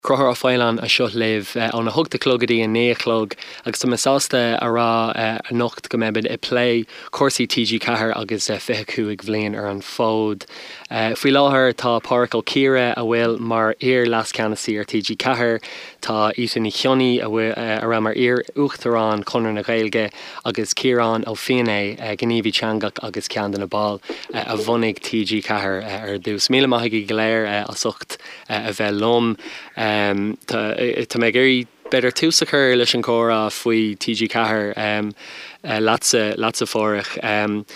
Conchúr Ó Faoláin anseo libh óna hocht a chlog go dtí a naoi a chlog agus tá mé sásta a rá anocht go mbeimid ag plé cúrsaí TG4 agus 25 bhliain ar an bhfód. Faoi láthair tá Pádhraic Ó Ciardha a bhfuil mar iar-leascheannasaí ar TG4, tá Ita Ní Chionnaith a raibh mar iar-uachtarán Chonradh na Gaeilge agus Ciarán Ó Feinneadha, gníomhaí teangach agus ceann de na baill a bhunaigh TG4 ar dtús. Míle maith agaibh go léir as ucht a bheith liom. Tá mé ag iarraidh b'fhéidir tús a chur leis an chomhrá faoi TG4 leatsa, leatsa a Phádhraic.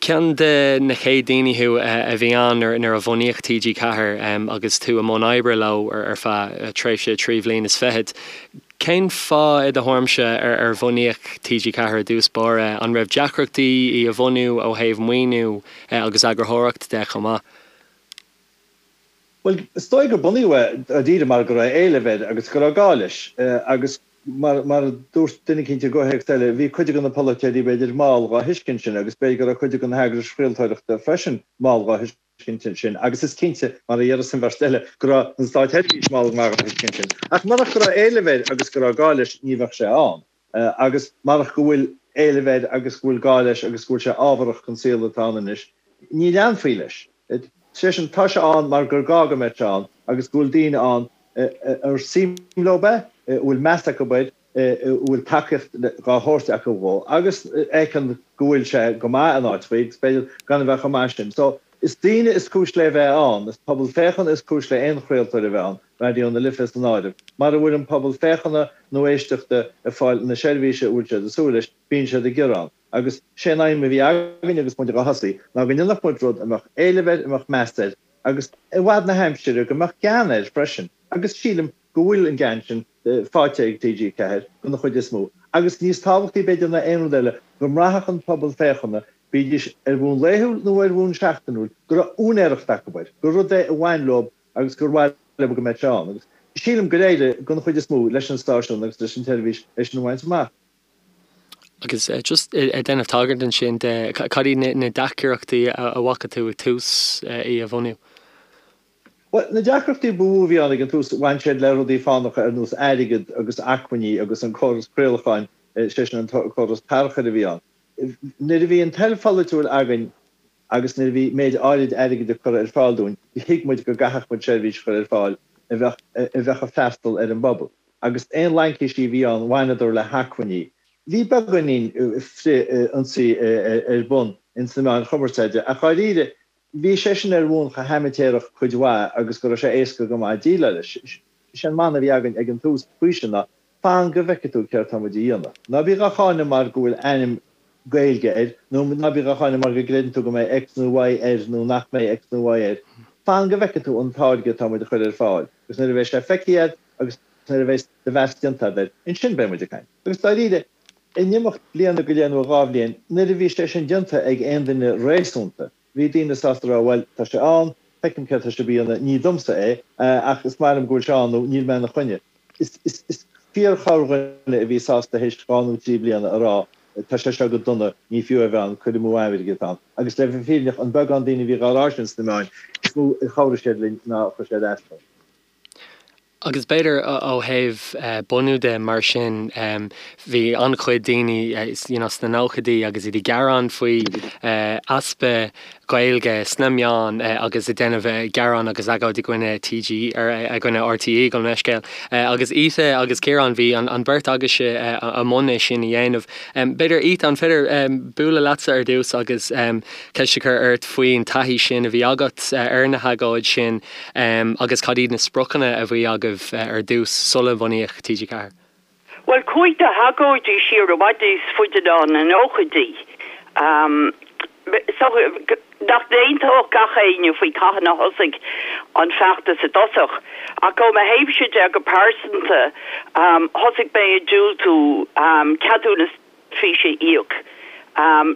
Ceann de na chéad daoine thú a bhí ann nuair a bhunaíodh TG4 agus tú i mbun oibre leo ar feadh tréimhse 3 bhliain is fichead. Cén fáth i do thuairimse ar bhunaíodh TG4 i dtús báire? An raibh deacrachtaí í a bhunú ó thaobh maoiniú agus eagarthóireacht de chomh maith? Bhuel, is dóigh gur bunaíodh é dáiríre mar go raibh éileamh air agus go raibh gá leis. Agus mar a dúirt duine eicínt i gcomhthéacs eile, bhí cuid de na polaiteoirí b'fhéidir mall dhá thuiscint sin agus b'fhéidir go raibh cuid de na heagrais chraoltóireachta freisin mall dhá thuiscint sin agus is cinnte, mar a déarfas an bheirt eile, go raibh an státseirbhís mall go maith dhá thuiscint sin. Ach murach go raibh éileamh air agus go raibh gá leis ní bheadh sé ann. Agus marach go bhfuil éileamh air agus go bhfuil gá leis agus go bhfuil sé ábharach don saol atá ann anois, ní leanfaí leis. Sé sin, tá sé ann mar gur gá go mbeadh sé ann agus go bhfuil daoine ann ar suim leo é, a bhfuil meas acu air, a bhfuil tacaíocht dhá thabhairt acu dhó agus a fheiceann go bhfuil sé go maith in áiteachaí agus b'fhéidir gan a bheith chomh maith sin. So, is daoine is cúis le bheith ann, is pobal féachana is cúis le aon chraoltóir a bheith ann, Raidió na Life san áireamh. Mara bhfuil an pobal féachana nó éisteachta ag fáil na seirbhíse a bhfuil siad ag súil leis, bíonn siad ag gearán. Agus sé an aidhm a bhí againn agus muid dhá thosaí ná go ndéanfadh muid rud a mbeadh éileamh air, a mbeadh meas air agus i bhfad na haimsire go mbeadh gean air freisin. Agus sílim go bhfuil an gean sin faighte ag TG4 den chuid is mó. Agus níos tábhachtaí b'fhéidir ná aon rud eile, go mbraithfeadh an pobal féachana, bídís ar bhonn laethúil nó ar bhonn seachtainiúil, go raibh úinéireacht acu air, gur rud é a bhain leo agus gur mhaith leo go mbeadh sé ann. Agus sílim gur éirigh, den chuid is mó, leis an stáisiún agus leis an tseirbhís é sin a bhaint amach. Agus just ag déanamh tagairt ansin de, cad iad na deacrachtaí a bhfaca tú ag tús í a bhunú? Bhuel, na deacrachtaí ba mhó a bhí ann ag an tús, bhain siad le rudaí fánacha ar nós airgead agus acmhainní agus an córas craolacháin, sé sin an córas tarchuir a bhí ann. Nuair a bhí an toil pholaitiúil againn agus nuair a bhí méid áirid airgid á cur ar fáil dúinn, thuig muid go gcaithfeadh muid seirbhís a chur ar fáil a bheadh a bheadh ag freastal ar an bpobal. Agus aon laincísí a bhí ann, bhaineadar le hacmhainní. Bhí beagáinín frith-ionsaí ar bun ins na meáin chumarsáide, ach dháiríre, bhí sé sin ar bhonn chomh haimitéarach cuid mhaith agus go raibh sé éasca go maith déileáil leis. Sé an mana a bhí againn ag an tús faoi sin ná, Fan go bhfeicfidh tú céard tá muid a dhéanamh. Ná bí dhá cháineadh mar go bhfuil ainm Gaeilge air, nó ná bí dhá cháineadh mar go gcreideann tú go mbeidh X nó Y air nó nach mbeidh X nó Y air. Fan go bhfeicfidh tú an táirge atá muid a chur ar fáil, agus nuair a bheidh sé feicthe agat agus nuair a bheidh do mheas déanta agat air, ansin beidh muid ag caint. Agus dáiríre, in imeacht bliana go leith nó 2 bhliain, nuair a bhí sé sin déanta ag aon duine réasúnta, Bhí daoine sásta a rá, bhuel, tá sé ann, feicim céard tá sibh a dhéanamh, ní domsa é, ach is maith liom go bhfuil sé ann nó níl mé ina choinne. Is fíorchorrdhuine a bhí sásta théis 2 nó 3 bliana a rá, tá sé seo go dona, ní fiú é a bheith ann, cur amú airgid atá ann. Agus le bheith fírinneach, an beagán daoine a bhí dhá rá sin sna meáin, is mó a chabhraigh siad linn ná a chuir siad as dúinn. Agus b'fhéidir ó thaobh bunú de mar sin, bhí an-chuid daoine you know sna nóchaidí agus iad ag gearán faoi easpa Gaeilge sna meáin agus ag déanamh gearán agus agóid i gcoinne TG, i gcoinne RTÉ gabh mo leithscéal. Agus Ita agus Ciarán, bhí an bheirt agaibhse i mbun é sin a dhéanamh. B'fhéidir Ita, an féidir bualadh leatsa ar dtús agus ceist a chur ort faoin taithí sin a bhí agat ar na hagóid sin Agus cad iad na spriocanna a bhí agaibh ar dtús sula mbunaíodh TG4? Bhuel, chuaigh na hagóidí siar i bhfad níos faide ná na nóchaidí. Is dócha nach n-aontódh gach éinne faoi cathain a thosaigh an feachtas i dtosach, ach ó mo thaobhse de go pearsanta, thosaigh mé ag diúltú ceadúnas físe a íoc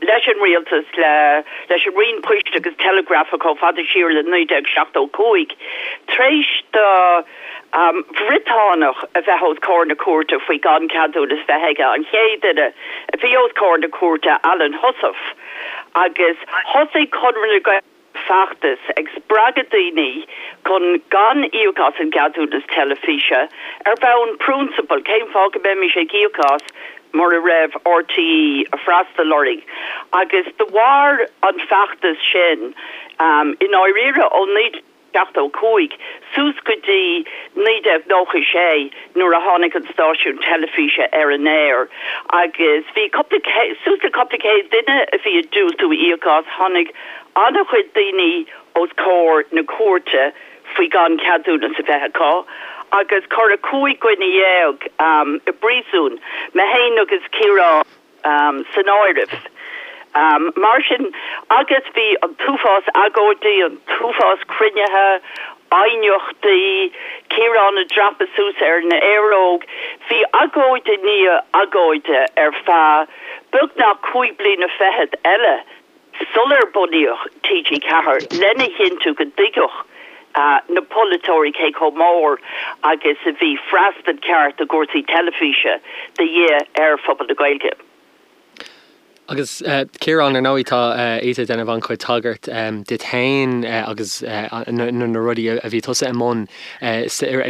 leis an rialtas, leis an Roinn Poist agus Teileagrafa chomh fada siar le 1975, tar éis do Bhriotánach a bheith os comhair na cúirte faoi gan ceadúnas bheith aige, an chéad duine a bhí os comhair na cúirte, Alan Heussaff, agus thosaigh Conradh na Gaeilge. feachtas ag spreagadh daoine chun gan íoc as an gceadúnas teilifíse ar bhonn priúnsabail, cén fáth go mbeimis ag íoc as mura raibh RTÉ ag freastal orainn? Agus do mhair an feachtas sin i ndáiríre ó 1975 suas go dtí 1996 nuair a tháinig an stáisiún teilifíse ar an aer agus bhí cúpla, suas le cúpla céad duine a bhí ag diúltú íoc as. Tháinig an-chuid daoine os comhair na cúirte faoi gan ceadúnas a bheith acu agus cuireadh 15 dhuine i bpríosún, mé féin agus Ciarán. san áireamh. Mar sin, agus bhí an t-uafás agóidí, an t-uafás cruinnithe, aighneachtaí, Ciarán ag dreapadh suas ar an aeróg, bhí agóid i ndiaidh agóide ar feadh beagnach chúig bliana fichead eile sular bunaíodh TG4 lena chinntiú go dtuigfeadh na polaiteoirí cé chomh mór agus a bhí freastal ceart i gcúrsaí teilifíse de dhíth ar phobal na Gaeilge. Agus Ciarán, ar ndóigh tá Ita ag déanamh an-chuid tagairt duit féin agus na rudaí a bhí tusa i mbun i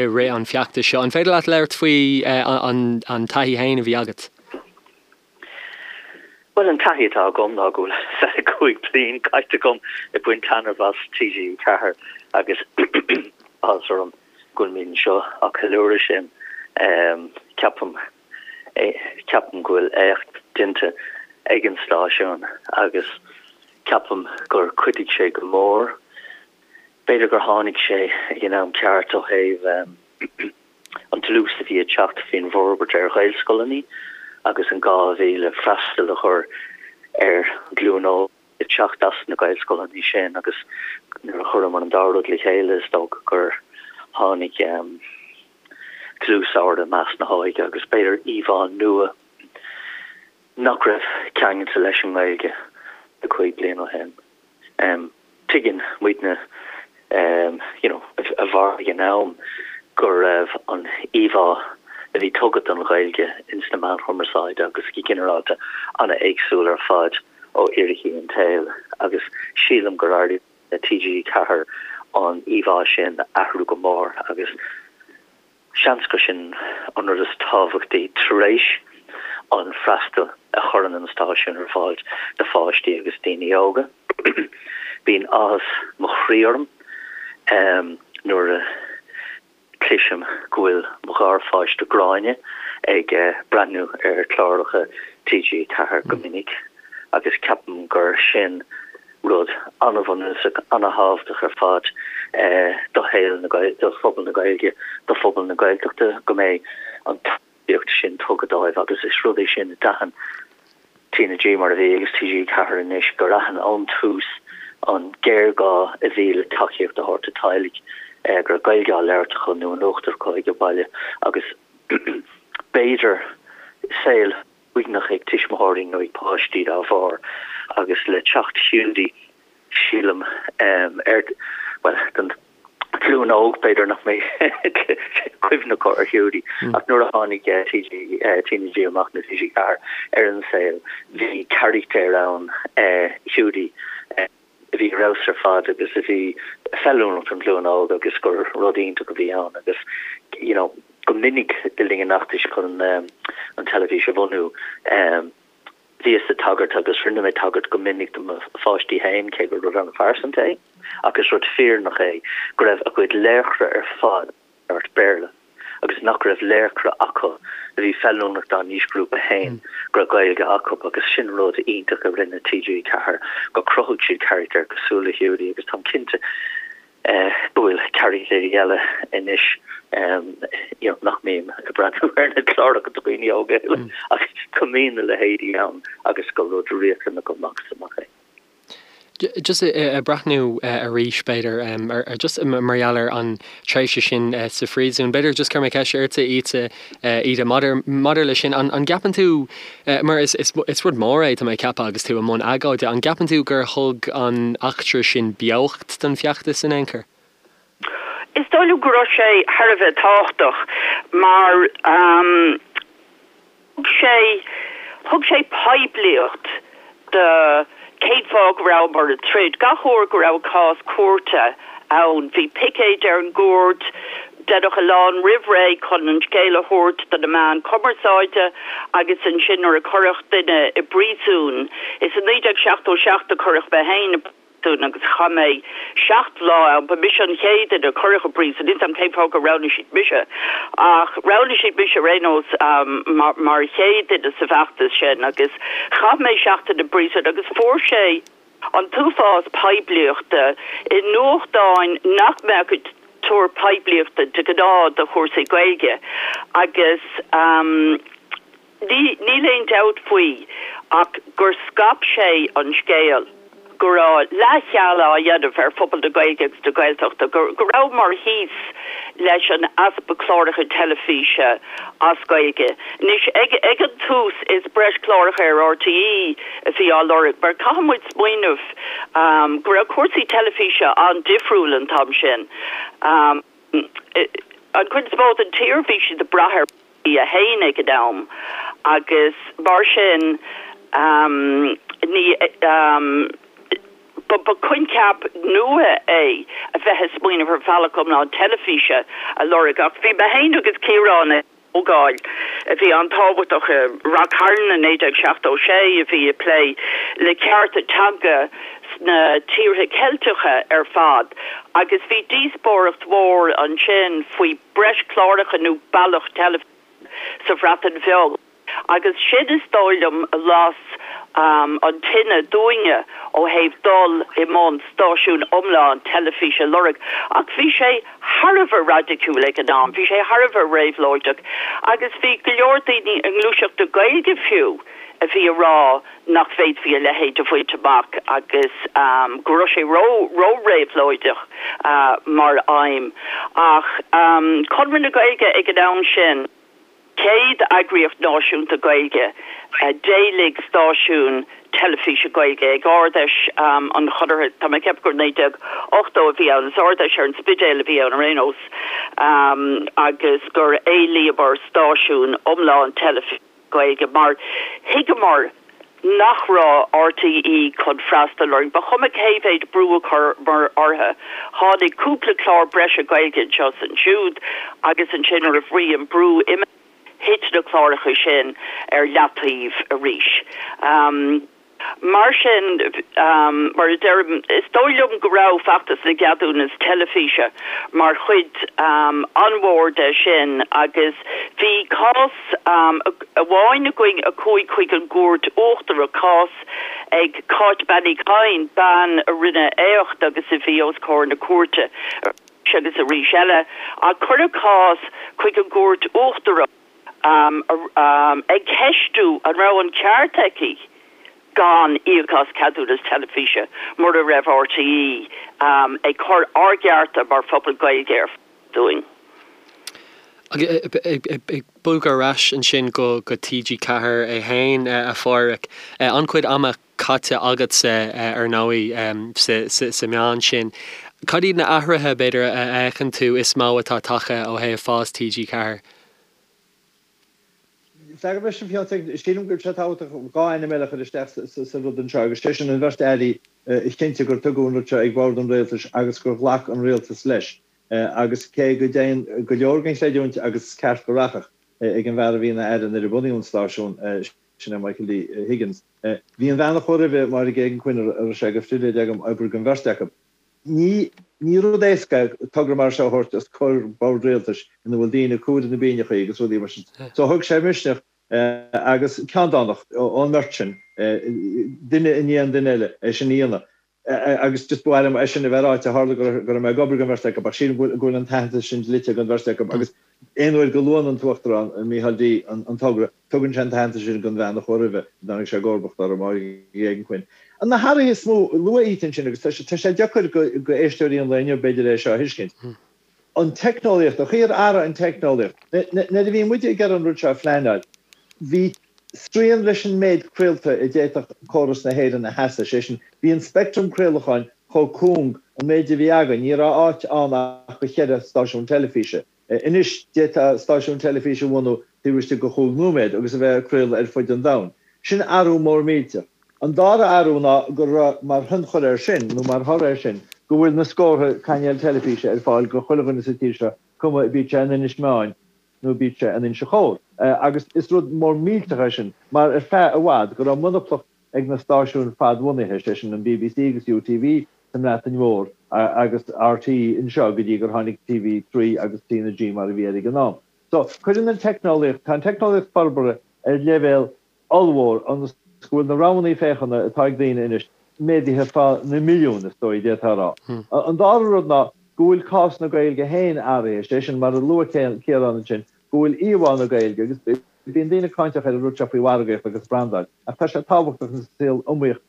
rith an feachtais seo. An féidir leat labhairt faoi an taithí féin a bhí agat? Bhuel, an taithí atá agam ná go bhfuil 25 bliain caite agam ag baint taitneamh as TG4 agus áthas orm go bhfuilimid anseo á ceiliúradh sin. Ceapaim, ceapaim go bhfuil éacht déanta ag an stáisiún agus ceapaim gur chuidigh sé go mór. B'fhéidir gur tháinig sé ag an am ceart ó thaobh an dlús a bhí ag teacht faoin bhforbairt ar Ghaelscoileanna agus an gá a bhí le freastal a chur ar an ghlúin óg ag teacht as na Gaelscoileanna sin agus nuair a chuireamar an dá rud le chéile is dócha gur tháinig dlús ard i measc na hóige agus b'fhéidir íomhá nua nach raibh ceangailte leis an nGaeilge 5 bliana ó shin. Tuigeann muidne you know a mhair ag an am go raibh an íomhá a bhí tugtha don Ghaeilge ins na meáin chumarsáide agus go ginearálta an-éagsúil ar fad ó fhíricí an tsaoil agus sílim gur éirigh le TG4 an íomhá sin a athrú go mór agus Seans gur sin an rud is tábhachtaí tar éis an freastal a chuireann an stáisiún ar fáil do pháistí agus daoine óga. Bíonn áthas mo chroí orm nuair a chloisim go bhfuil mo gharpháiste Gráinne ag breathnú ar chláracha TG4 go minic agus ceapaim gur sin rud an-bhunúsach, an-thábhachtach ar fad do shaol na, do phobal na Gaeilge, do phobal na Gaeltachta, go mbeidh an tacaíocht sin tugtha dóibh agus is rud é sin a d'aithin TnaG mar a bhí agus TG4 anois, gur aithin ón tús an géarghá a bhí le tacaíocht a thabhairt do teaghlaigh go raibh Gaeilge á labhairt acu nó in uachtar acu ag an baile agus b'fhéidir saol uaigneach ag tuismitheoirí nó ag páistí dá bharr agus le teacht Hiúdaí sílim ar, bhuel, don ghlúin óg b'fhéidir nach mbeidh cuimhne acu ar Hiúdaí ach nuair a tháinig TG, TnaG amach nó TG4 ar an saol bhí carachtar ann, Hiúdaí, a bhí ar fheabhas ar fad agus a bhí feiliúnach don ghlúin óg agus gur rud iontach a bhí ann agus you know go minic le linn an fheachtais chun an teilifís a bhunú bhíos ag tagairt agus rinne mé tagairt go minic do mo pháistí féin cé gur rud an-phearsanta é ach is rud fírinneach é go raibh a gcuid laochra ar fad labhairt Béarla agus nach raibh laochra acu a bhí feiliúnach dá n-aoisghrúpa féin go raibh Gaeilge acu agus sin rud iontach a rinne TG4 gur chruthaigh siad carachtair cosúil le Hiúdaí agus táim cinnte go bhfuil carachtair eile anois you know nach mbím ag breathnú ar na cláracha do dhaoine óga ach go mbíonn a leithéidí ann agus gur rud riachtanach amach is amach é. Just ag breathnú arís b'fhéidir ar just mar gheall ar an tréimhse sin sa phríosún, b'fhéidir just cuirfidh mé ceist ortsa Ita, Ita maidir maidir leis sin, an an gceapann tú mar is is is rud mór é tá mé ag ceapadh agus tú i mbun agóide, an gceapann tú gur thug an eachtra sin beocht don feachtas in aon chor? Is dóigh liom go raibh sé thar a bheith tábhachtach mar thug sé, thug sé poiblíocht do. Cén fáth go rabhamar ag troid? Gach uair go raibh cás cúirte ann, bhí picéid ar an gcúirt, deineadh a lán roimh ré chun an scéal a thabhairt do na meáin chumarsáide agus ansin nuair a cuireadh duine i bpríosún, is i 1977 a cuireadh mé féin i bpríosún agus chaith mé 7 lá ann, ba mise an chéad duine a cuireadh i bpríosún, níl 's a'm cén fáth gur roghnaigh siad mise ach roghnaigh siad mise ar aon nós mar chéad duine sa bhfeachtas sin agus chaith mé seachtain i bpríosún agus fuair sé an t-uafás poiblíochta i nuachtáin nach mbeadh ag tabhairt poiblíochta de ghnáth do chúrsaí Gaeilge agus níl aon dabht faoi ach gur scaip sé an scéal go raibh leathcheal á dhéanamh ar phobal na Gaeilge agus na Gaeltachta, go rabhamar thíos leis an easpa cláracha teilifíse as Gaeilge. Anois, ag an tús is breis cláracha ar RTÉ a bhí á lorg mar caithfidh muid smaoineamh go raibh cúrsaí teilifíse an-difriúil an t-am sin. An chuid is mó den tír bhí siad ag brath ar RTÉ 1 ag an am agus mar sin ní ba coincheap nua é a bheith ag smaoineamh ar bhealach iomlán teilifíse a lorg ach bhí mé féin agus Ciarán ag comhdháil a bhí an-tábhachtach i Rath Cairn i 1976 a bhí ag plé le cearta teanga sna tíortha Ceilteacha ar fad agus bhí díospóireacht mhór ansin faoi breis cláracha nó bealach teilifíse sa Bhreatain Bheag agus sin is dóigh liom a las an tine dúinne ó thaobh dul i mbun stáisiún iomlán teilifíse a lorg. Ach bhí sé thar a bheith raidiciúil ag an am, bhí sé thar a bheith réabhlóideach agus bhí go leor daoine i ngluaiseacht na Gaeilge fiú a bhí ag rá nach bhféadfaí a leithéid a bhaint amach agus go raibh sé ró-réabhlóideach mar aidhm. Ach Conradh na Gaeilge ag an am sin, chéad eagraíocht náisiúnta Gaeilge, d'éiligh stáisiún teilifíse Gaeilge ag Ard-Fheis an Chonartha, tá mé ag ceapadh gur 1980 a bhí ann, is Ard-Fheis ar an Spidéal a bhí ann ar aon nós, agus gur éilíomar stáisiún iomlán teilifíse. Gaeilge mar thuigeamar nach raibh RTÉ chun freastal orainn. Ba chuma cé mhéid brú a chuireamar orthu, tháinig cúpla clár breise Gaeilge anseo is ansiúd agus ansin nuair a bhí an brú imithe, thit na cláracha sin ar leataobh arís. Mar sin, mar a deirim, is dóigh liom go raibh feachtas na gceadúnas teilifíse mar chuid an-mhór de sin agus bhí cás amháin againn a chuaigh chuig an gCúirt Uachtarach, cás ag Cáit Bean Uí Chadhain, bean a rinne éacht agus a bhí os comhair na cúirte arís agus arís eile, ach cuireadh cás chuig an gCúirt Uachtarach. ag ceistiú an raibh an ceart aici gan íoc as ceadúnas teilifíse mura raibh RTÉ ag cur ár gcearta mar phobal Gaeilge ar fáil dúinn. Ag bogadh ar ais ansin go TG4 é féin, a Phádhraic, an-chuid ama caite agatsa, ar ndóigh, sa meán sin. Cad iad na athruithe, b'fhéidir, a fheiceann tú is mó atá tagtha ó thaobh fás TG4? Freagra leis an bhfiántas ag, sílim go bhfuil sé tábhachtach 2 ainm eile a chur isteach sa rud anseo agus sé sin an bheirt airí a chinntigh gur tugadh an rud seo ag bord an rialtais agus gur ghlac an rialtas leis agus cé go dtéann go leor den chreidiúint agus is ceart go rachadh ag an bhfear a bhí ina aire nuair a bunaíodh an stáisiún, sin é Michael D. Higgins. Bhí an bhean a chuaigh roimhe, Máire Geoghegan-Quinn, a raibh sé de phribhléid agam oibriú don bheirt acu. Ní ní rud éasca é togra mar seo a thabhairt os comhair bord rialtais ina bhfuil daoine ag cur na bpingineacha agus rudaí mar sin. So thóg sé misneach agus ceanndánacht ón mbeirt sin, duine i ndiaidh an duine eile, é sin a dhéanamh. Agus just ba mhaith liom é sin a bheith ráite, tharla go raibh mé ag obair don bheirt acu ach sílim go bhfuil an t-aitheantas sin dlite don bheirt acu agus aon uair go luann an tUachtarán, Micheál D, an togra, tugann sé an t-aitheantas sin don bhean a chuaigh roimhe, a dtáinig sé i gcomharbacht orthu, Máire Geoghegan-Quinn. Na hathruithe is mó, luadh iad ansin agus tá sé deacair go éisteoirí an lae inniu b'fhéidir é seo a thuiscint. An teicneolaíocht, an chaoi ar athraigh an teicneolaíocht. Nuair a bhí muide ag iarraidh an rud seo a phleanáil, bhí srian leis an méid craolta a d'fhéadfadh córas na hÉireann a sheasamh, sé sin, bhí an speictream craolacháin chomh cúng, an méid a bhí againn, ní raibh áit ann ach do cheithre stáisiún teilifíse. Anois, d'fhéadfá stáisiún teilifíse a bhunú taobh istigh de chúig nóiméad agus a bheith ag craoladh ar fud an domhain. Sin athrú mór millteach. An dara athrú ná go raibh mar thionchar air sin, nó mar thoradh air sin, go bhfuil na scórtha cainéal teilifíse ar fáil go chuile dhuine sa tír seo, cuma bíodh sé in Inis Meáin nó bíodh sé in Inse Chór. Agus is rud mór millteach é sin, mar ar feadh i bhfad go raibh monaplacht ag na stáisiúin fadbhunaithe, sé sin an bbc agus UTV sa mBreatain Mhór agus RTÉ anseo go dtí gur tháinig TV3 agus TnaG mar a bhí air ag an am. So, cuireann an teicneolaíocht, tá an teicneolaíocht forbartha ar leibhéal ollmhór ionas go bhfuil na roghanna féachana atá ag daoine anois méadaithe fá na milliúin, is dóigh, d'fhéadfá a rá. An dara rud ná go bhfuil cás na Gaeilge féin athraithe, sé sin, mar a luaigh Ciarán ansin, go bhfuil íomhá na Gaeilge, agus bíonn daoine cáinteach ar an rud seo faoi mhargaíocht agus brandáil, ach tá sé tábhachtach sa saol iomaíoch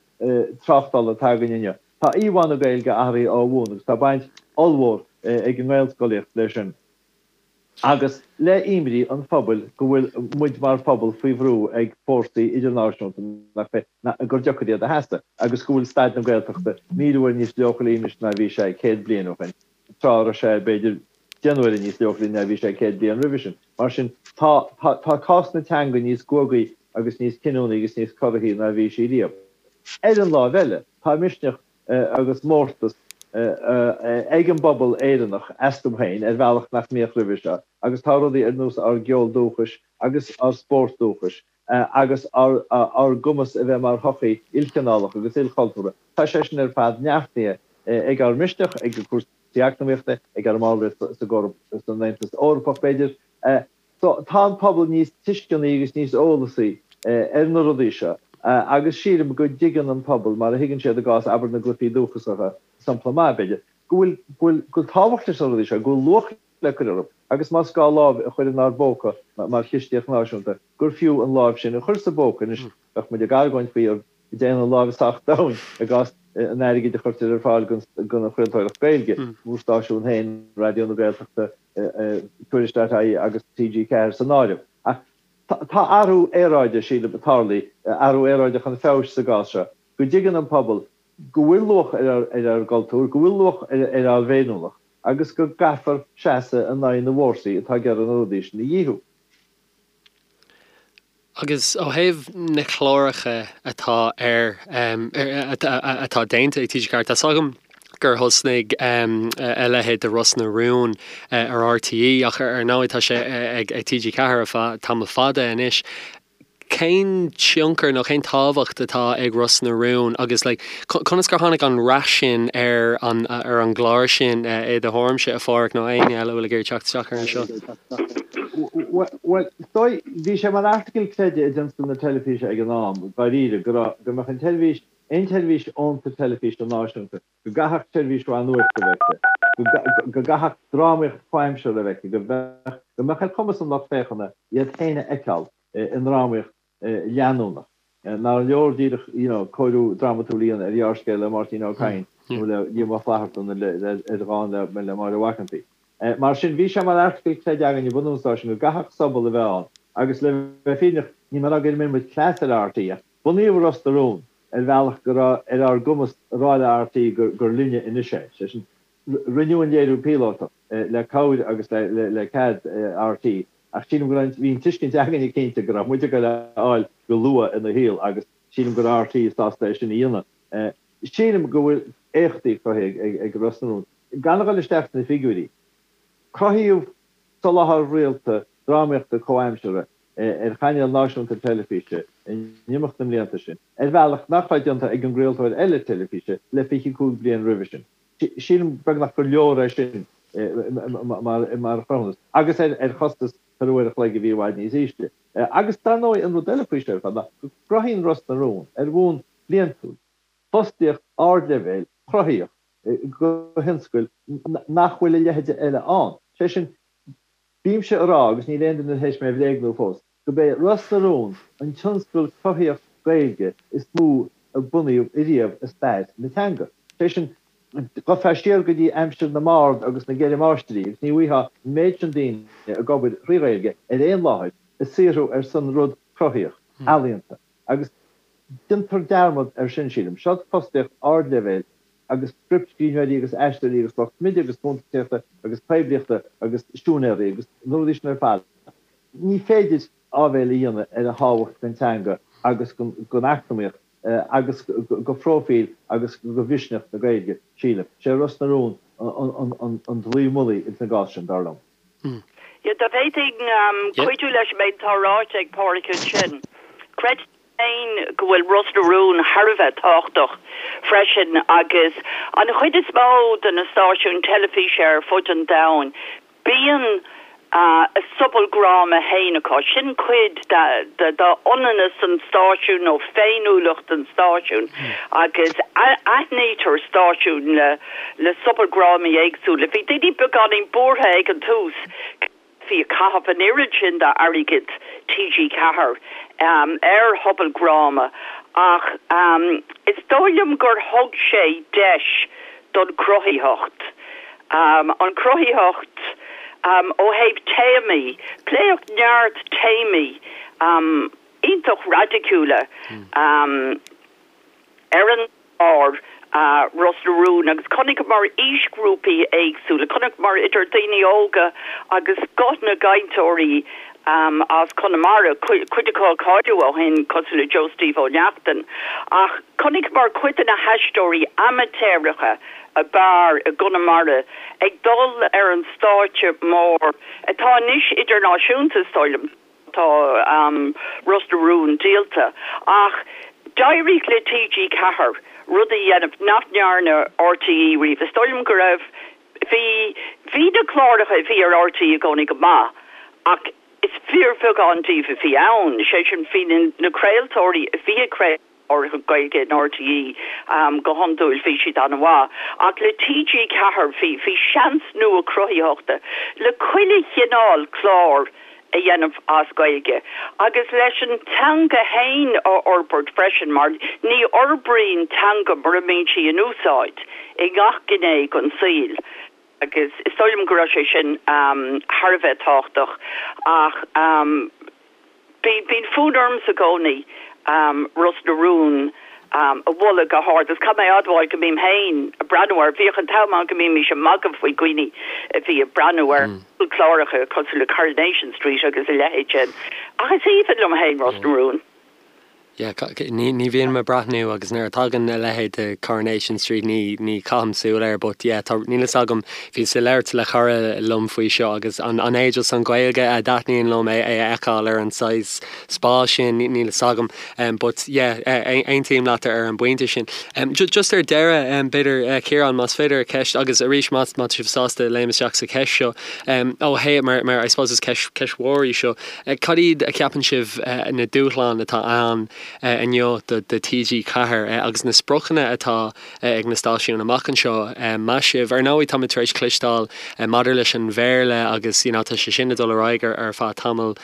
tráchtála atá againn inniu. Tá íomhá na Gaeilge athraithe ó bhun agus tá baint ollmhór ag an nGaelscolaíocht leis sin. Agus le imní an phobail go bhfuil muid mar phobal faoi bhrú ag fórsaí idirnáisiúnta nach féidir, gur deacair iad a sheasamh, agus go bhfuil staid na Gaeltachta 1,000 uair níos leochailí anois ná bhí sé 100 bliain ó shin, tráth a raibh sé, b'fhéidir, 10 n-uaire níos leochailí ná bhí sé 100 bliain roimhe sin. Mar sin, tá, tá cás na teanga níos guagaí agus níos cinniúnaí agus níos corraithí ná bhí sí riamh. Ar an láimh eile, tá misneach agus mórtas ag an bpobal Éireannach astu féin ar bhealach nach mbíodh roimhe seo agus tá rudaí ar nós ár gceol dúchais agus ár spórt dúchais agus ár gcumas a bheith mar shochaí ilchineálach agus ilchultúrtha, tá sé sin ar fad neartaithe ag ár misneach, ag cúrsaí eacnamaíochta, ag ár mballraíocht san Aontas Eorpach, b'fhéidir. So, tá an pobal níos tuisceanaí agus níos eolasaí ar na rudaí seo agus sílim go dtuigeann an pobal, mar a thuigeann siad i gcás, abair, na gcluichí dúchasacha, sampla maith, b'fhéidir, go bhfuil, go bhfuil, go bhfuil tábhacht leis na rudaí seo, go bhfuil luach le cur orthu agus más gá lámh a chur inár bpóca mar chistíocht náisiúnta, gur fiú an lámh sin a chur sa bpóca. Anois, bheadh muid ag argóint faoi an dtéann an lámh sách domhain i gcás an airgid a chuirtear ar fáil don chraoltóireacht Gaeilge, bhur stáisiún féin, Raidió na Gaeltachta, Tuairisc.ie agus TG4 san áireamh. Ach tá athrú aeráide, sílim, tarlaithe, athrú aeráide chun feabhais sa gcás seo, go dtuigeann an pobal go bhfuil luach ar ár gcultúr, go bhfuil luach ar ár bhféiniúlacht agus go gcaithfear seasamh in aghaidh na bhfórsaí atá ag iarraidh na rudaí sin a dhíothú. Agus ó thaobh na cláracha atá ar, atá déanta ag TG4, tá 's agam gur thosnaigh a leithéid de Ros na Rún ar RTÉ ach ar ndóigh tá sé ag TG4 ar feadh tamall fada anois. Cén tionchar nó cén tábhacht atá ag Ros na Rún agus like conas gur tháinig an rath sin ar an ar an gclár sin i do thuairimse, a Pháraic, nó éinne eile a bhfuil ag iarraidh teacht isteach ar anseo? Bhuel, is dóigh, bhí sé mar article creidimh i dtionscal na teilifíse ag an am, dáiríre, go raibh, go mbeadh an tseirbhís, aon tseirbhís fhónta teilifíse náisiúnta, go gcaithfeadh seirbhís mhaith nuachta a bheith aici, go gcaithfeadh drámaíocht chomhaimseartha a bheith aici, go mbeadh, go mbeadh ar chumas an lucht féachana iad féin a fheiceáil i ndrámaíocht leanúnach. Nár leor díreach, you know, cóiriú drámatúil a dhéanamh ar ghearrscéal le Máirtín Ó Cadhain nó le Liam Ó Flaithearta nó le, ar dhán le, le Máire Mhac an tSaoi. Mar sin, bhí sé mar article creidimh againn ag bunú an stáisiúin go gcaithfeadh sobal a bheith ann agus le bheith fírinneach, níl mé ag rá gur imir muid cleas ar RTÉ ach bunaíodh Ros na Rún ar bhealach go raibh ar ár gcumas a rá le RTÉ gur, gur linne anois é. Sé sin, rinneadh an léiriú píolótach le cabhair agus le, le cead RTÉ Ach sílim go raibh, bhí an tuiscint againne cinnte go raibh muid ag goil a fháil go luath ina shaol agus sílim go raibh RTÉ sásta é sin a dhéanamh. Sílim go bhfuil éachtaí cruthaithe ag Ros na Rún. Gan a dhul isteach sna figiúirí, cruthaíodh soláthar rialta drámaíochta comhaimseartha ar chainéal náisiúnta teilifíse in imeacht na mblianta sin, ar bhealach nach raibh déanta ag an gcraoltóir eile teilifíse le 25 bliain roimhe sin. Sílim beagnach gur leor é sin mar chruthúnas, agus ar chostas per uair a chloig a bhí i bhfad níos ísle. Agus dar ndóigh an rud eile faoi seo ar fad ná go gcruthaíonn Ros na Rún, ar bhonn bliantúil, fostaíocht ardleibhéil chruthaíoch do thionscail nach bhfuil a leithide eile ann. Sé sin, Bímse a rá, agus níl aon duine tar éis mé a bhréagnú fós, gurb é Ros na Rún an tionscal cruthaíoch Gaeilge is mó a bunaíodh ariamh i stair na teanga. Sé sin, ghabhfá siar go dtí aimsir na mbard agus na gCeithre Máistrí agus ní bhfaighfeá an méid sin daoine ag obair thrí Ghaeilge ar aon láthair ag saothrú ar son rud cruthaíoch, ealaíonta. Agus déantar dearmad air sin, sílim. Seo fostaíocht ardleibhéil agus scriptscríbhneoirí agus aisteoirí agus lucht smididh agus cuntasaíochta agus poiblíochta agus siúinéirí agus na rudaí sin ar fad. Ní féidir áibhéil a dhéanamh ar a thábhacht don teanga agus don eacnamaíocht. agus go phróifíl agus go mhisneach na Gaeilge, sílim. Sé Ros na Rún an dlaoi mullaigh ins an gcás sin, dar liom. Yeah, dá bhféadfainn cuidiú leis an méid atá ráite ag Páraic ansin. Creidim féin go bhfuil Ros na Rún thar a bheith tábhachtach freisin agus an chuid is mó de na stáisiúin teilifíse ar fud an domhain, Bíonn a sobaldhráma féin acu. Sin cuid d'ionannas an stáisiúin nó féiniúlacht an stáisiúin agus aithnítear stáisiún le sobaldhrámaí éagsúla. Bhí daoine beagáinín buartha ag an tús go mbeifí ag caitheamh an oiread sin d'airgead TG4 ar shobaldhráma ach is dóigh liom gur thug sé deis don chruthaitheacht. An chruthaitheacht ó thaobh téamaí, pléadh neart téamaí iontach raidiciúla ar an gclár Ros na Rún agus chonaiceamar aoisghrúpaí éagsúla, chonaiceamar idir daoine óga agus scoth na gcainteoirí as Conamara, cuid acu a cailleadh ó shin cosúil le Joe Steve Ó Neachtain, ach chonaiceamar cuid de na haisteoirí amaitéaracha ab fhearr i gConamara ag dul ar an stáitse mór atá anois idirnáisiúnta, is dóigh liom. Tá Ros na Rún díolta ach d'éirigh le TG4 rud a dhéanamh nach ndearna RTÉ riamh. Is dóigh liom go raibh, bhí, bhí na cláracha a bhí ar RTÉ i gcónaí go maith ach is fíorbheagán díobh a bhí ann, sé sin bhí na craoltóirí a bhí ag craoladh cláracha Gaeilge in RTÉ go hiondúil bhí siad an-mhaith ach le TG4 bhí, bhí seans nua cruthaitheachta le chuile chineál clár a dhéanamh as Gaeilge agus leis an teanga fhéin a fhorbairt freisin mar ní fhorbraíonn teanga mura mbíonn sí in úsáid i ngach gné den saol agus is dóigh liom go raibh sé sin thar a bheith tábhachtach ach bíonn fonn ormsa i gcónaí Ros na Rún a mholadh go hard agus caithfidh mé a admháil go mbím féin ag breathnú air. Bhíodh an t-am ann go mbímís ag magadh faoi dhaoine a bhí ag breathnú ar chláracha cosúil le Coronation Street agus a leithéid sin ach is aoibhinn liom féin Ros na Rún. Yeah, ní ní bhíonn mé ag breathnú agus nuair a tagann a leithéid de Coronation Street ní ní chaithim súil air but yeah tá níl fhios agam bhíos ag labhairt le cara liom faoi seo agus an an é just an Ghaeilge a dtaitníonn liom é é a fheiceáil ar an saghas spás sin níl fhios agam but yeah aontaím leat ar an bpointe sin. Just ar deireadh b'fhéidir Ciarán más féidir ceist agus arís má tá sibh sásta léim isteach sa cheist seo ó thaobh mar mar I suppose is ceist ceist mhór í seo cad iad a cheapann sibh na dúshláin atá ann inniu do do TG4 agus na spriocanna atá ag na stáisiúin amach anseo meas sibh? Ar ndóigh táimid tar éis cloisteáil maidir leis an Bhéarla agus you know tá sé sin ag dul ar aghaidh ar ar feadh tamall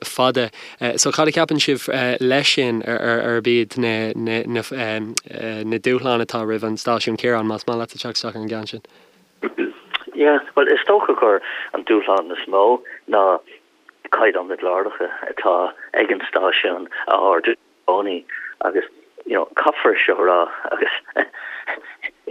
fada. So cad a cheapann sibh leis sin arb iad na dúshláin atá roimh an stáisiún? Ciarán, más maith leat teacht isteach ar an gceann sin. Yeah, bhuel is dócha gur an dúshlán is mó ná caighdeán na gcláracha atá ag an stáisiún a ardú i gcónaí agus you know caithfear seo a rá agus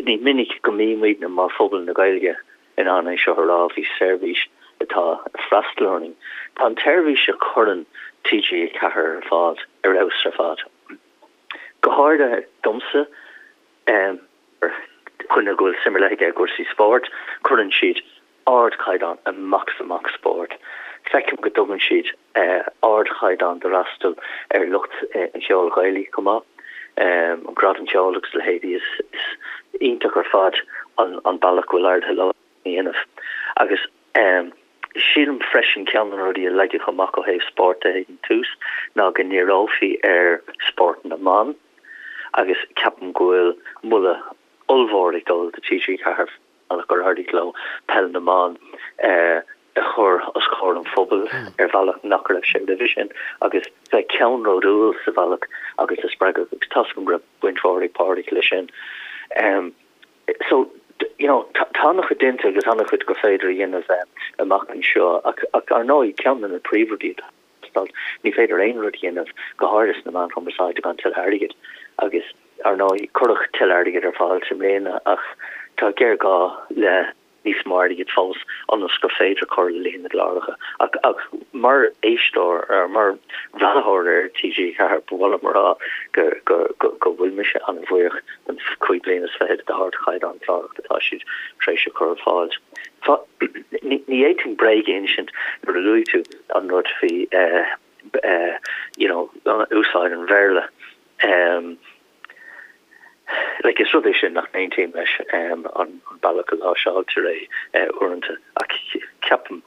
ní minic go mbímidne mar phobal na Gaeilge in ann é seo a rá faoi seirbhís atá ag freastal orainn. Tá an tseirbhís a chuireann TG4 ar fáil ar fheabhas ar fad. Go háirithe domsa, mar dhuine go bhfuil suim ar leith aige i gcúrsaí spóirt, cuireann siad ardchaighdeán amach is amach spóirt. Feicim go dtugann siad ardchaighdeán d'fhreastal ar lucht an cheoil Ghaelaigh chomh maith, an Gradam Ceoil agus a leithéidí. Is iontach ar fad an bealach go bhfuil éirithe leo a dhéanamh. Agus sílim freisin ceann de na rudaí a leagadh amach ó thaobh spóirt de ag an tús ná go ndíreofaí ar spórt na mban agus ceapaim go bhfuil moladh ollmhór ag dul do TG4. bealach gur éirigh leo peil na mban a chur os comhair an phobail ar bhealach nach raibh sé roimhe sin agus bheith ceannródúil sa bhealach agus a spreagadh agus tá's agam go raibh baint mhór ag Pádraig leis sin. So, you know, tá an-chuid déanta agus an-chuid gur féidir a dhéanamh amach anseo ach ar ndóigh ceann de na príomhrudaí atá Ní féidir aon rud a dhéanamh, go háirithe sna meáin chumarsáide, gan tuilleadh airgid. Agus, ar ndóigh, cuireadh tuilleadh airgid ar fáil i mbliana ach tá géarghá le níos mó airgid fós ionas gur féidir cur le líon na gcláracha. Ach. Mar éisteoir, mar bhreathnaitheoir ar TG4, ba mhaith liom a rá go go bhfuil mise an-bhuíoch den chúig bliana is fichead d'ardchaighdeán clárach atá siad tar éis a chur ar fáil. Ní fhéadfainn bréag a insint nuair a luaigh tú an rud faoi you know úsáid an Bhéarla. Like is rud é sin nach n-aontaím leis, an bealach a láimhseáiltear é uaireanta, ach ceapaim,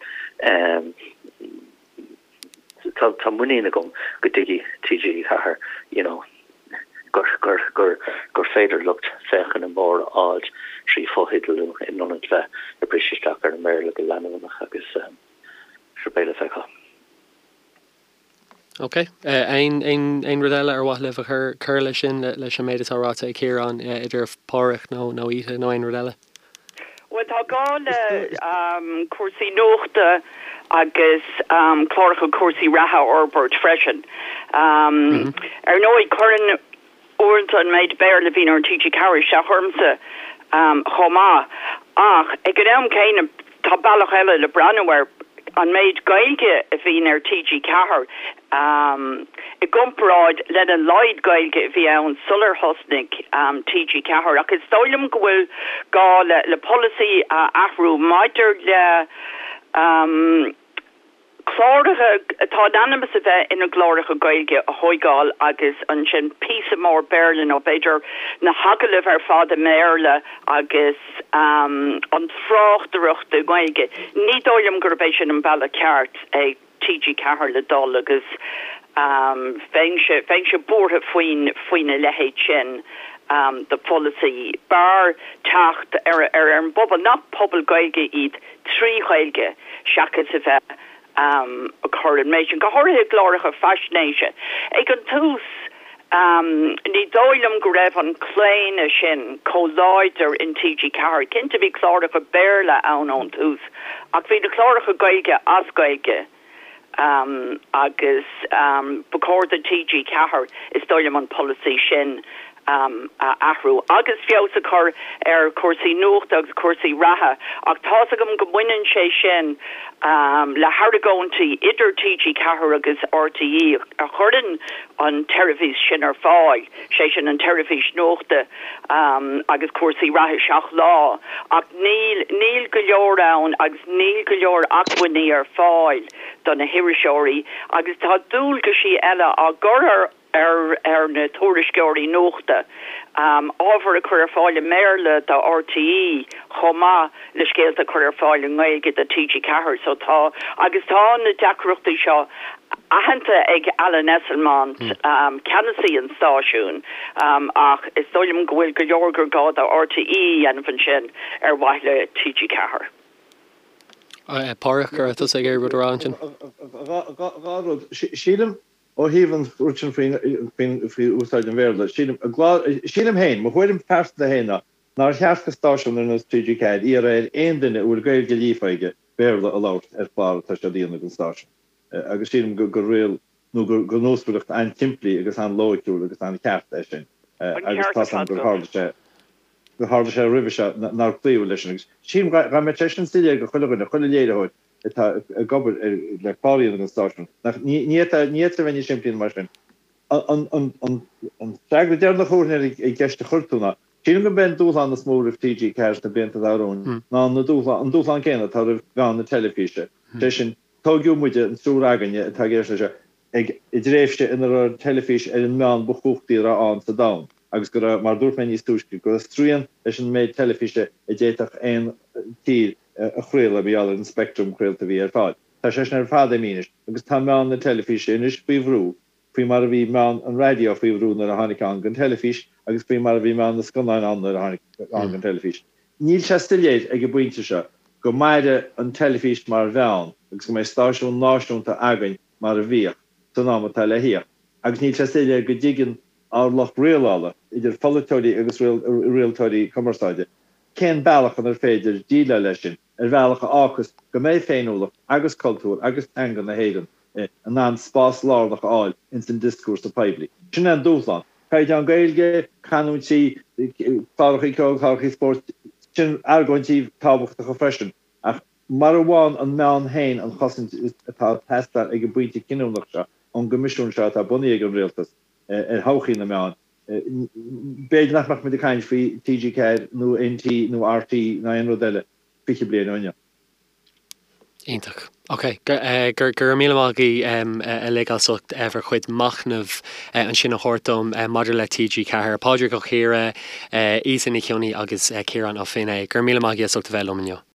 tá tá muinín agam go dtuigfidh TG4 you know gur gur gur gur féidir lucht féachana mór a fháilt trí fotheidealú in ionad bheith ag briseadh isteach ar an mBéarla go leanúnach agus sure beidh le feiceáil. Ok. Aon, aon, aon rud eile ar mhaith libh a chur, cur leis sin, leis an méid atá ráite ag Ciarán, idir Páraic nó, nó Ita nó aon rud eile? Bhuel, tá gá le cúrsaí nuachta agus cláracha cúrsaí reatha a fhorbairt freisin. Ar ndóigh, cuireann Uaireanta an méid Béarla a bhíonn ar TG4 isteach ormsa chomh maith ach ag an am céanna tá bealach eile le breathnú air, an méid Gaeilge a bhíonn ar TG4 i gcomparáid lena laghad Gaeilge a bhí ann sular thosnaigh TG4 ach is dóigh liom go bhfuil gá le polasaí a athrú maidir le Cláracha atá in ainm is a bheith ina gcláracha Gaeilge a thóigeáil agus ansin píosa mór Béarla nó b'fhéidir na hagallaimh ar fad i mBéarla agus an tráchtaireacht i nGaeilge. Ní dóigh liom gurb é sin an bealach ceart ag TG4 le dul agus bheinnse, bheinnse buartha faoin, faoina leithéid sin de pholasaí. B'fhearr teacht ar, ar an bpobal, nach pobal Gaeilge iad, trí Ghaeilge seachas a bheith ag cur an méid sin, go háirithe i gcláracha faisnéise. Ag an tús, ní dóigh liom go raibh an claonadh sin chomh láidir in TG4. Cinnte bhí cláracha Béarla ann ón tús ach bhí na cláracha Gaeilge as Gaeilge agus ba chóir do TG4, is dóigh liom, an polasaí sin a athrú agus feabhas a chur ar chúrsaí nuachta agus cúrsaí reatha ach tá's agam go mbaineann sé sin le hargóintí idir TG4 agus RTÉ a chuireann an tseirbhís sin ar fáil, sé sin an tseirbhís nuachta agus cúrsaí reatha 7 lá ach níl, níl go leor ann agus níl go leor acmhainní ar fáil do na hiriseoirí agus tá dualgaisí eile á gcur ar ar na tuairisceoirí nuachta ábhar a chur ar fáil i mBéarla do RTÉ chomh maith le scéalta a chur ar fáil i nGaeilge do TG4. So tá, agus tá na deacrachtaí seo aitheanta ag Alan Esslemont, ceannasaí an stáisiúin, ach is dóigh liom go bhfuil go leor gur gá do RTÉ a dhéanamh ansin ar mhaithe le TG4. Páraic, an raibh tusa ag iarraidh rud a rá ansin? Dhá rud. Sílim Ó thaobh an rud sin faoi úsáid an Bhéarla, sílim, sílim féin, mo thuairim phearsanta féin ná nár cheart do stáisiún ar nós TG4 iarraidh ar aon duine a bhfuil Gaeilge líofa aige Béarla a labhairt ar chlár atá siad a dhéanamh don stáisiún. Agus sílim gur riail nó gur nósmhaireacht an-tsimplí agus an-loighciúil agus an-cheart é sin. Agus tá's agam gur tharla sé, gur tharla sé roimhe seo nár cloíodh leis sin. Agus sílim dá mbeadh sé sin soiléir do chuile dhuine, chuile léiritheoir, atá ag obair le clár a dhéanamh don stáisiún. Nach, ní fhéadfá, ní fhéadfá a bheith níos simplí ná mar sin. An, an, an, an freagra deireanach a thabharfainn ar an gceist a chuir tú ná, sílim gurb é an dúshlán is mó roimh TG4 sna blianta atá romhainn ná na dúshlán, an dúshlán céanna atá roimh mheán na teilifíse. Sé sin, tóigeadh muide, an triúr againne atá ag éisteacht leis seo, ag, i dtréimhse ina raibh an teilifís ar an meán ba chumhachtaí a raibh ann sa domhan agus go raibh, mar a dúirt mé níos túisce, go raibh srian leis an méid teilifíse a d'fhéadfadh aon tír a chraoladh mar gheall ar an speictream craolta a bhí ar fáil. Tá sé sin ar fad imithe anois agus tá meán na teilifíse anois faoi bhrú, faoi mar a bhí meán an raidió faoi bhrú nuair a tháinig ann don teilifís agus faoi mar a bhí meán na scannáin ann nuair a tháinig ann don teilifís. Níl sé soiléir ag an bpointe seo go mairfidh an teilifís mar mheán agus go mbeidh stáisiún náisiúnta againn mar a bhíodh san am atá le thíocht agus níl sé soiléir go dtuigeann ár lucht rialála, idir pholaiteoirí agus rialtóirí cumarsáide, Cén bealach inar féidir déileáil leis sin, ar bhealach a fhágfas go mbeidh féiniúlacht agus cultúr agus teanga na hÉireann in ann spás lárnach a fháil ins an dioscúrsa poiblí? Sin é an dúshlán. Caighdeán Gaeilge, canúintí, clárachaí ceoil, clárachaí spóirt, sin argóintí tábhachtacha freisin, ach. Mara bhfaigheann an meán féin an chosaint atá ag teastáil ag an bpointe cinniúnach seo ón gCoimisiún seo atá bunaithe ag an Rialtas ar thodhchaí na meán, b'fhéidir nach mbeadh muid ag caint faoi TG4 nó NT nó RTÉ ná aon rud eile 20 bliain ó inniu. Iontach. Ok. Go raibh míle maith agaibh uilig as ucht bhur chuid machnaimh ansin a thabhairt dom maidir le TG4. Pádraig Ó Ciardha, Íosa Ní Chionnaith agus Ciarán Ó Finneadha. Go raibh míle maith agaibh as ucht a bheith liom inniu.